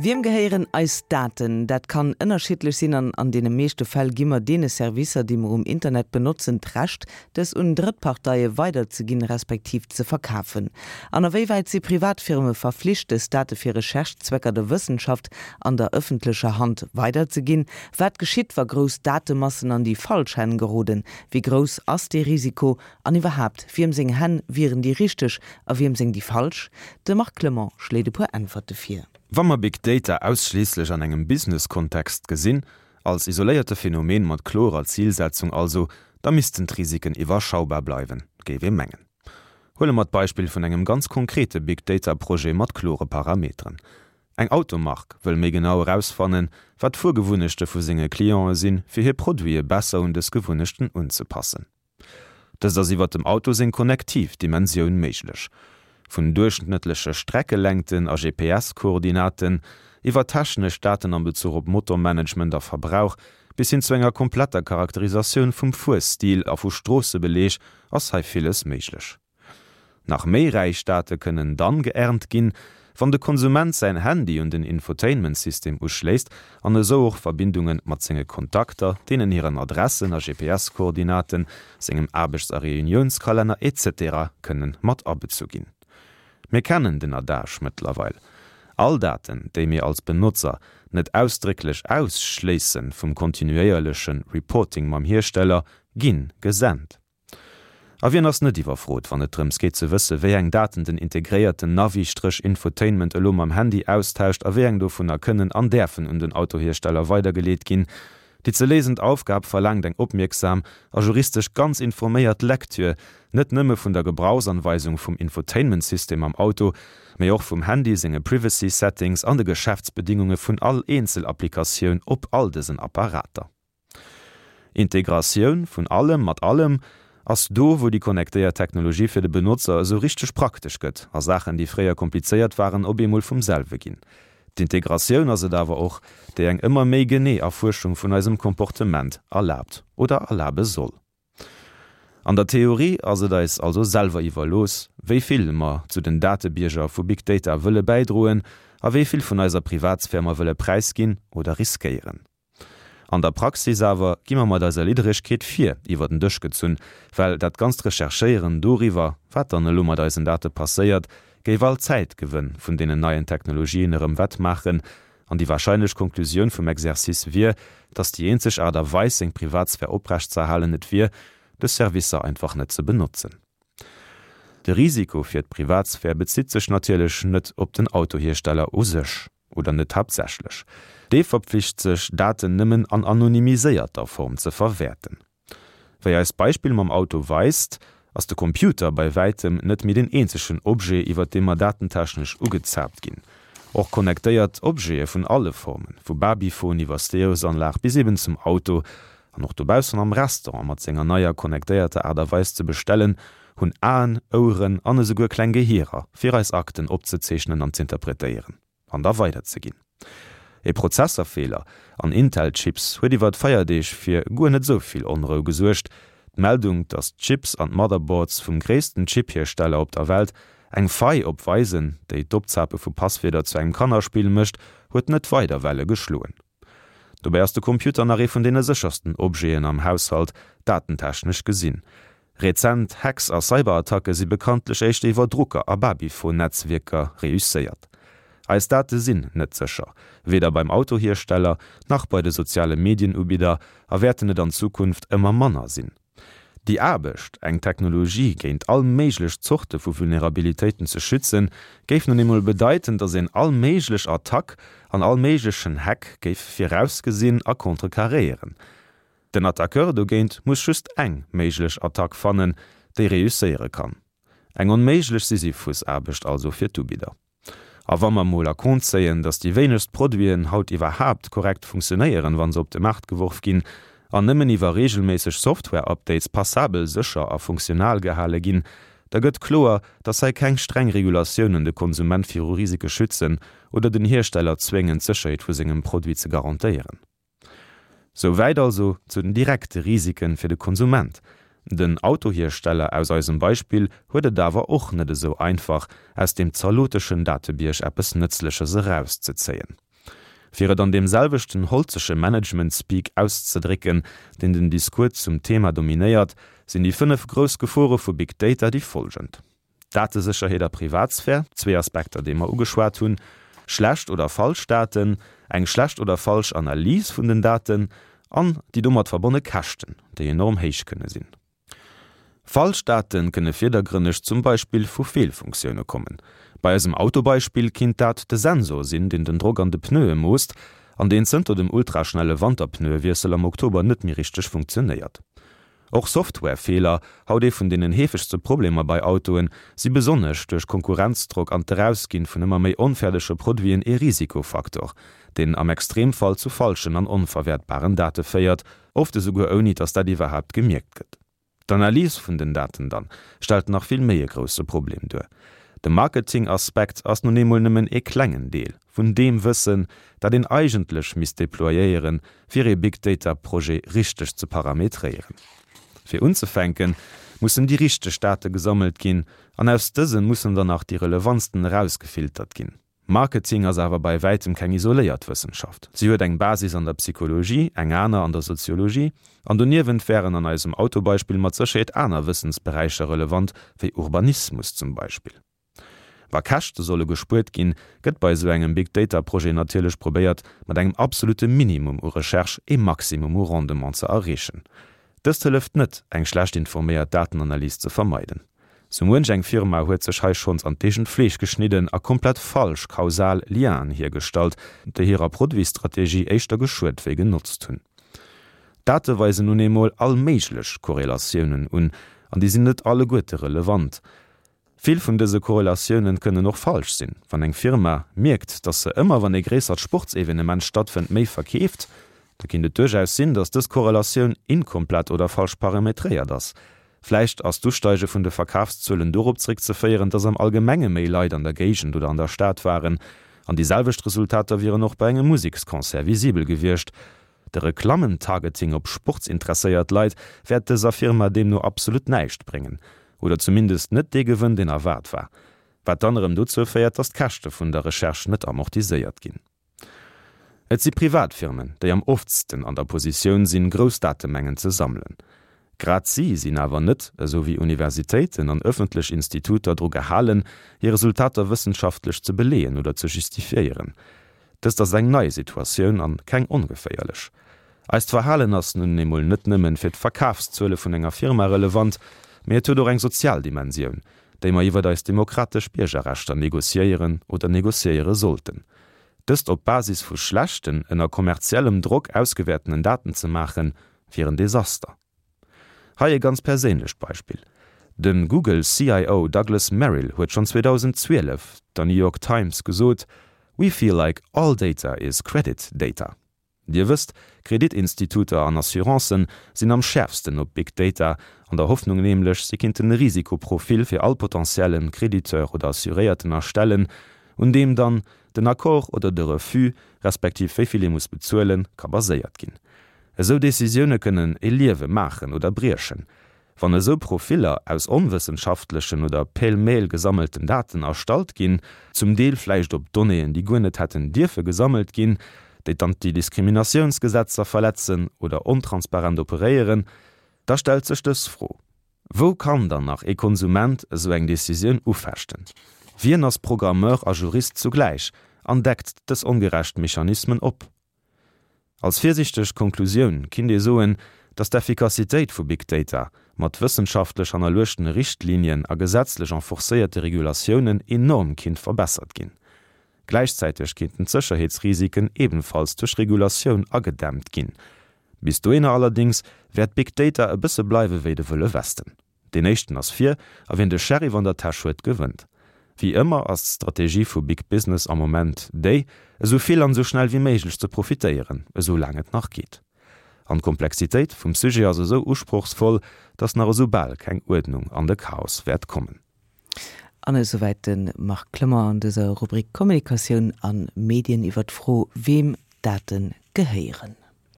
Wiem gehéieren eis Daten? Dat kann ënnerschiddlech sinn an an deene meeschte Fäll gi mer deene Servicer, déi mer um Internet benotzen, d'Recht, dës un Drëttparteie weiderzeginn, respektiv ze verkafen. An a wéi wäit si Privatfirme verflicht, dës Date fir Recherche-Zwecker der Wëssenschaft an der ëffentlecher Hand weiderzeginn? Wat geschitt, wa grouss Datemassen an déi falsch Hänn geroden? Wéi grouss ass dee Risiko? An iwwerhaapt, wiem seng Hänn wieren déi richteg a wiem seng déi falsch? De Marc Clement schléit e puer Äntwerte vir. Wa mer Big Data ausschliisslech an engem Business-Kontext gesinn, als isoléierte Phänomen mat klorer Zilsetzung also, da missten d'Risiken iwwerschaubar bleiwen, géif ee mengen. Huele mer d'Beispill vun engem ganz konkrete Big Data-Projet mat klore Parameteren. Eng Automark wëll méi genau erausfannen, wat d'Fuergewunnechte vu senge Clientë sinn, fir hir Produite besser un dës Gewunnechten unzepassen. Dëst ass iwwer dem Auto seng konnektiv Dimensioun méiglech. Vun duerchschnëttleche Streckelängten a GPS-Koordinaten, iwwer technesch Daten am Bezuch op Motormanagement a Verbrauch, bis hin zu enger kompletter Charakterisatioun vum Fuerstil a vu Stroossebeleeg ass hei villes méiglech. Nach méi räich Date kënnen dann geernt ginn, wann de Konsument säin Handy un den Infotainment-System uschléisst an esou och Verbindunge mat senge Kontakter, deenen hiren Adressen a GPS-Koordinaten, sengem Aarbechts a Reuniounskalenner etc. Kënnen mat abezu ginn. Mir kennen den Adage mëttlerweil, All Daten, déi mir als Benotzer net ausdrécklech ausschléisse vum kontinuéierleche Reporting mam Hiersteller, ginn gesent. A wien ass net iwwerfrot, wann et drëms geet ze wësse wéi eng Daten den integréierten Navi-Infotainment elo mam Handy austauscht a wéi eng dovunner kënnen an däerfen un den Autohiersteller weidergeleet ginn? Déi ze léisend Aufgab verlaangt eng opmierksam a juristesch ganz informéiert Lektür, net nëmme vun der Gebrauchsanweisung vum Infotainment-System am Auto, mee och vum Handy senge Privacy-Settings an de Geschäftsbedingunge vun all Eenzelapplikatioun op all dësen Apparater. Integratioun vun allem mat allem ass do, wou déi connectéiert Technologie fir de Benotzer esou richteg praktesch gëtt a Saachen, déi fréier komplizéiert waren, op eemol vum selwe ginn. D'Integratioun ass et awer och, déi eng ëmmer méi genee Erfuerschung vun eisem Comportement erlaabt oder erlabe soll. An der Theorie ass et eis also selwer iwwerlooss, wéi vill mer zu den Datebierger vu Big Data wëlle bäidroen a wéi vill vun eiser Privatsphär mer wëlle präisginn oder riskéieren. An der Praxis awer gi mer mat eiser Lidderegkeet vir iwwer den Dësch gezunn, well dat ganzt Recherchéieren doriwwer, wat dann elo mat eisen Date passéiert, géif all Zäitgewënn vun deenen neien Technologien erëm wett maachen. An déi wahrscheinlech Konklusioun vum Exercice wier, dass déi eenzeg Aart a Weis, seng Privatsphär oprechtzeerhalen, et wier, dës Servicer einfach net ze benotzen. De Risiko fir d'Privatsphär bezitt sech natierlech net op den Autohiersteller u sech. Oder net haaptsächlech. Dee verpflicht sech, Daten nëmmen an anonymiséierter Form ze verwäerten. Wéi eist Beispill mam Auto weist, ass de Computer bei wäitem net méi den eenzegen Objet, iwwer dee mer datentechnesch ugezaapt ginn. Och connectéiert Objete vun alle Formen, vu Babyphon iwwer Stereosanlag bis eben zum Auto, an och dobaussen am Restaurant mat senger neier connectéierter Aart a Weis ze bestellen, hunn Aen, Oueren an esouguer kleng Gehierer, fir eis Akten opzezeechnen an z'interpretéieren an da weiderzeginn. E Prozesserfeeler an Intel-Chips huet iwwer d'Feierdeeg fir guer net esou vill Onrou gesuergt. D'Meldung, datt d'Chips an d'Motherboards vum gréissten Chip-Hiersteller op der Welt eng Faille opweisen, déi d'Opzape vu Passwierder zu engem Kannerspill mécht, huet net weider Welle geschloen. Dobäi ass de Computer nach ee vun deene séchersten Objeten am Haushalt, datentechnesch gesinn. Rezent Hacks a Cyberattacke si bekanntlech éischter iwwer Drucker a Babyphone-Netzwierker reusséiert. Eis Date sinn net sécher, weder beim Autohiersteller, nach bei de soziale Medienubidder a wäerten et an Zukunft ëmmer manner sinn. Déi Aarbecht, eng Technologie géint all méiglech Zorte vu Vulnerabilitéiten ze schützen, géif nun eemol bedeiten, datt een all méiglech Attack an all méiglechen Hack géif virausgesinn a contrecarréieren. Den Attaqueur dogéint muss just eng méiglech Attack fannen, déi reusséiere kann. Eng onméiglech Sisyphusaarbecht also fir d'Ubidder. A wa mer mol a Compte zéien, datt déi wéinegst Produiten haut iwwerhaapt korrekt funktionéieren, wa se op de Maart geworf ginn, an nëmmen iwwer reegelméisseg Software-Updates passabel sécher a funktional gehale ginn, da gëtt kloer, datt hei keng streng Regulatiounen de Konsument viru Risike schützen oder den Hiersteller zwéngen, d'Sécherheet vu sengem Produit ze garantéieren. Souwäit also zu den direkte Risike fir de Konsument. Den Autohiersteller aus eisem Beispill huet et awer och net esou einfach, aus deem zaloteschen Datebierg eppes Nëtzleches erauszezéien. Fir et an deem selwechten holzege Management-Speak auszedrécken, deen den Discours zum Thema dominéiert, sinn déi 5 grouss Gefore vu Big Data déi folgend, Datesécherheet a Privatsphär, zwee Aspekter, déi mer ugeschwat hunn, schlecht oder falsch Daten, eng schlecht oder falsch Analys vun den Daten an déi domat verbonne Käschten, déi enorm héich kënne sinn. Falsch Date kënne virdergrënneg zum Beispill vu Feelfunktioune kommen. Bei eisem Autobeispill kinnt dat de Sensor sinn, deen den Drock an de Pneue moosst an deen zënter dem ultraschnelle Wanterpneuewiessel am Oktober net méi richteg funktionéiert. Och Softwarefeeler, haut ee vun deenen heefegste Problemer bei Autoen, si besonnesch duerch Konkurrenzdrock an d'Erausginn vun ëmmer méi onfäerdege Produiten ee Risikofaktor, deen am Extremfall zu falschen an onverwäertbaren Date féiert, oft esouguer ouni dass dat iwwerhaapt gemierkt gëtt. D'Analys vun den Daten dann stellt nach vill méi e grousse Problem duer. De Marketing-Aspekt ass nun eemol nëmmen ee klengen Deel vun deem Wëssen, dat een eigentlech misst deployéieren, fir ee Big Data Projet richteg ze parametréieren. Fir unzefänken, mussen déi richteg Date gesammelt ginn an aus dësen mussen dann nach déi relevantsten erausgefiltert ginn. Marketing ass awer bei wäitem keng isoléiert Wëssenschaft. Si huet eng Basis an der Psychologie, eng aner an der Soziologie, an doniewent wären an eisem Autobeispill mat Sécherheet aner Wëssensberäicher relevant, wéi Urbanismus zum Beispill. Wa Käschte solle gespuert ginn, gëtt bei esou engem Big Data Projet natierlech probéiert, mat engem absolute Minimum u Recherche ee Maximum u Rendement ze erreechen. Dëst hëlleft net, eng schlecht informéiert Datenanalys ze vermeiden. Sou muench eng Firma huet sech hei schonns an d'eegent Fleesch geschnidden a komplett falsch kausal Lienen hiergestallt, déi hirer Produitsstrategie éischter geschuet wéi genotzt hunn. D'Date weisen nun eemol all méiglech Korrelatiounen un, an déi sinn net alleguerte relevant. Vill vun dëse Korrelatiounen kënnen och falsch sinn. Wann eng Firma mierkt, dass se ëmmer wann ee gréissert Sportsevenement stattfënnt méi verkeeft, da kinnt et duerchaus sinn, dass dës Korrelatioun inkomplett oder falsch parametréiert ass. Vläicht ass d'Usteige vun de Verkafszuelen dorop zréckzeféieren, dass am Allgemenge méi Leit an der Géigend oder an der Stad waren. An déi selwecht Resultater wieren och bei engem Museksconcert visibel gewiescht. De Reklammen-Targeting op sportsinteresséiert Leit wäert dëser Firma deemno absolut näischt bréngen. Oder zumindest net dee Gewënn, deen erwaart war. Wat dann erëm dozou féiert, dass d'Käschte vun der Recherche net amortiséiert ginn. Et si Privatfirmen, déi am oftsten an der Positioun sinn, grouss Datemengen ze sammelen. Grad si sinn awer net, esou wéi Universitéiten an ëffentlech Instituter, dru gehalen, hir Resultater wëssenschaftlech ze beleeën oder ze justifiéieren. Dëst ass eng nei Situatioun an keng ongeféierlech. Eist Verhalen ass nun emol net nëmmen fir d'Verkafszuele vun enger Firma relevant, mee et huet och eng sozial Dimensioun, déi mer iwwert eis demokratesch Biergerrechter negociéieren oder negociéiere sollten. Dëst op Basis vu schlechten, ënner kommerziellem Drock ausgewäertenen Daten ze maachen, wier en Desaster. Hei e ganz perséinlecht Beispill, De Google CIO Douglas Merrill huet schonn 2012 der New York Times gesot, We feel like all data is credit data. Dir wësst, Kreditinstituter an Assurancen sinn am schäerfsten op Big Data, an der Hoffnung nämlech, si kinnten e Risikoprofil fir all potentiellen Krediteur oder Assuréierten erstellen, un deem dann den Accord oder de Refus, respektiv wéi vill ee muss bezuelen, ka baséiert ginn. Esou Decisioune kënnen e Liewe maachen oder briechen. Wann esou Profiller aus onwëssenschaftlechen oder pêle-mêle gesammelten Daten erstallt ginn, zum Deel vläicht op Donnéeën, déi guer net hätten dierfe gesammelt ginn, déi d'Antidiskriminatiounsgesetzer verletzen oder ontransparent operéieren, da stellt sech dës Fro, Wou kann dann nach ee Konsument esou eng Decisioun ufechten? Wien ass Programmeur a Jurist zugläich an deckt dës ongerecht Mechanismen op? Als virsichteg Konklusioun kinnt ee soen, datt d'Effikassitéit vu Big Data mat wëssenschaftlech hannerluechtene Richtlinien a gesetzlech enforcéierte Regulatiounen enorm kinnt verbessert ginn. Gläichzäiteg kinnten d'Sécherheetsrisiken ebenfalls duerch Regulatioun agedämmt ginn. Bis dohinner allerdéngs wäert Big Data e bësse bleiwe wéi de Wëlle Westen. Deen éischten ass vir, a wien de Sheriff an der Täsch huet, gewënnt. Wéi ëmmer ass d'Strategie vu Big Business am Moment déi, esou vill an esou schnell wéi méiglech ze profitéieren, esou laang et nach geet. An d'Komplexitéit vum Sujet ass esou usprochsvoll, datt nach esou bal keng Uerdnung an de Chaos wäert kommen. An esouwäit de Marc Clement an dëser Rubrik Kommunikatioun a Medien iwwer d'Fro, weem Date gehéieren.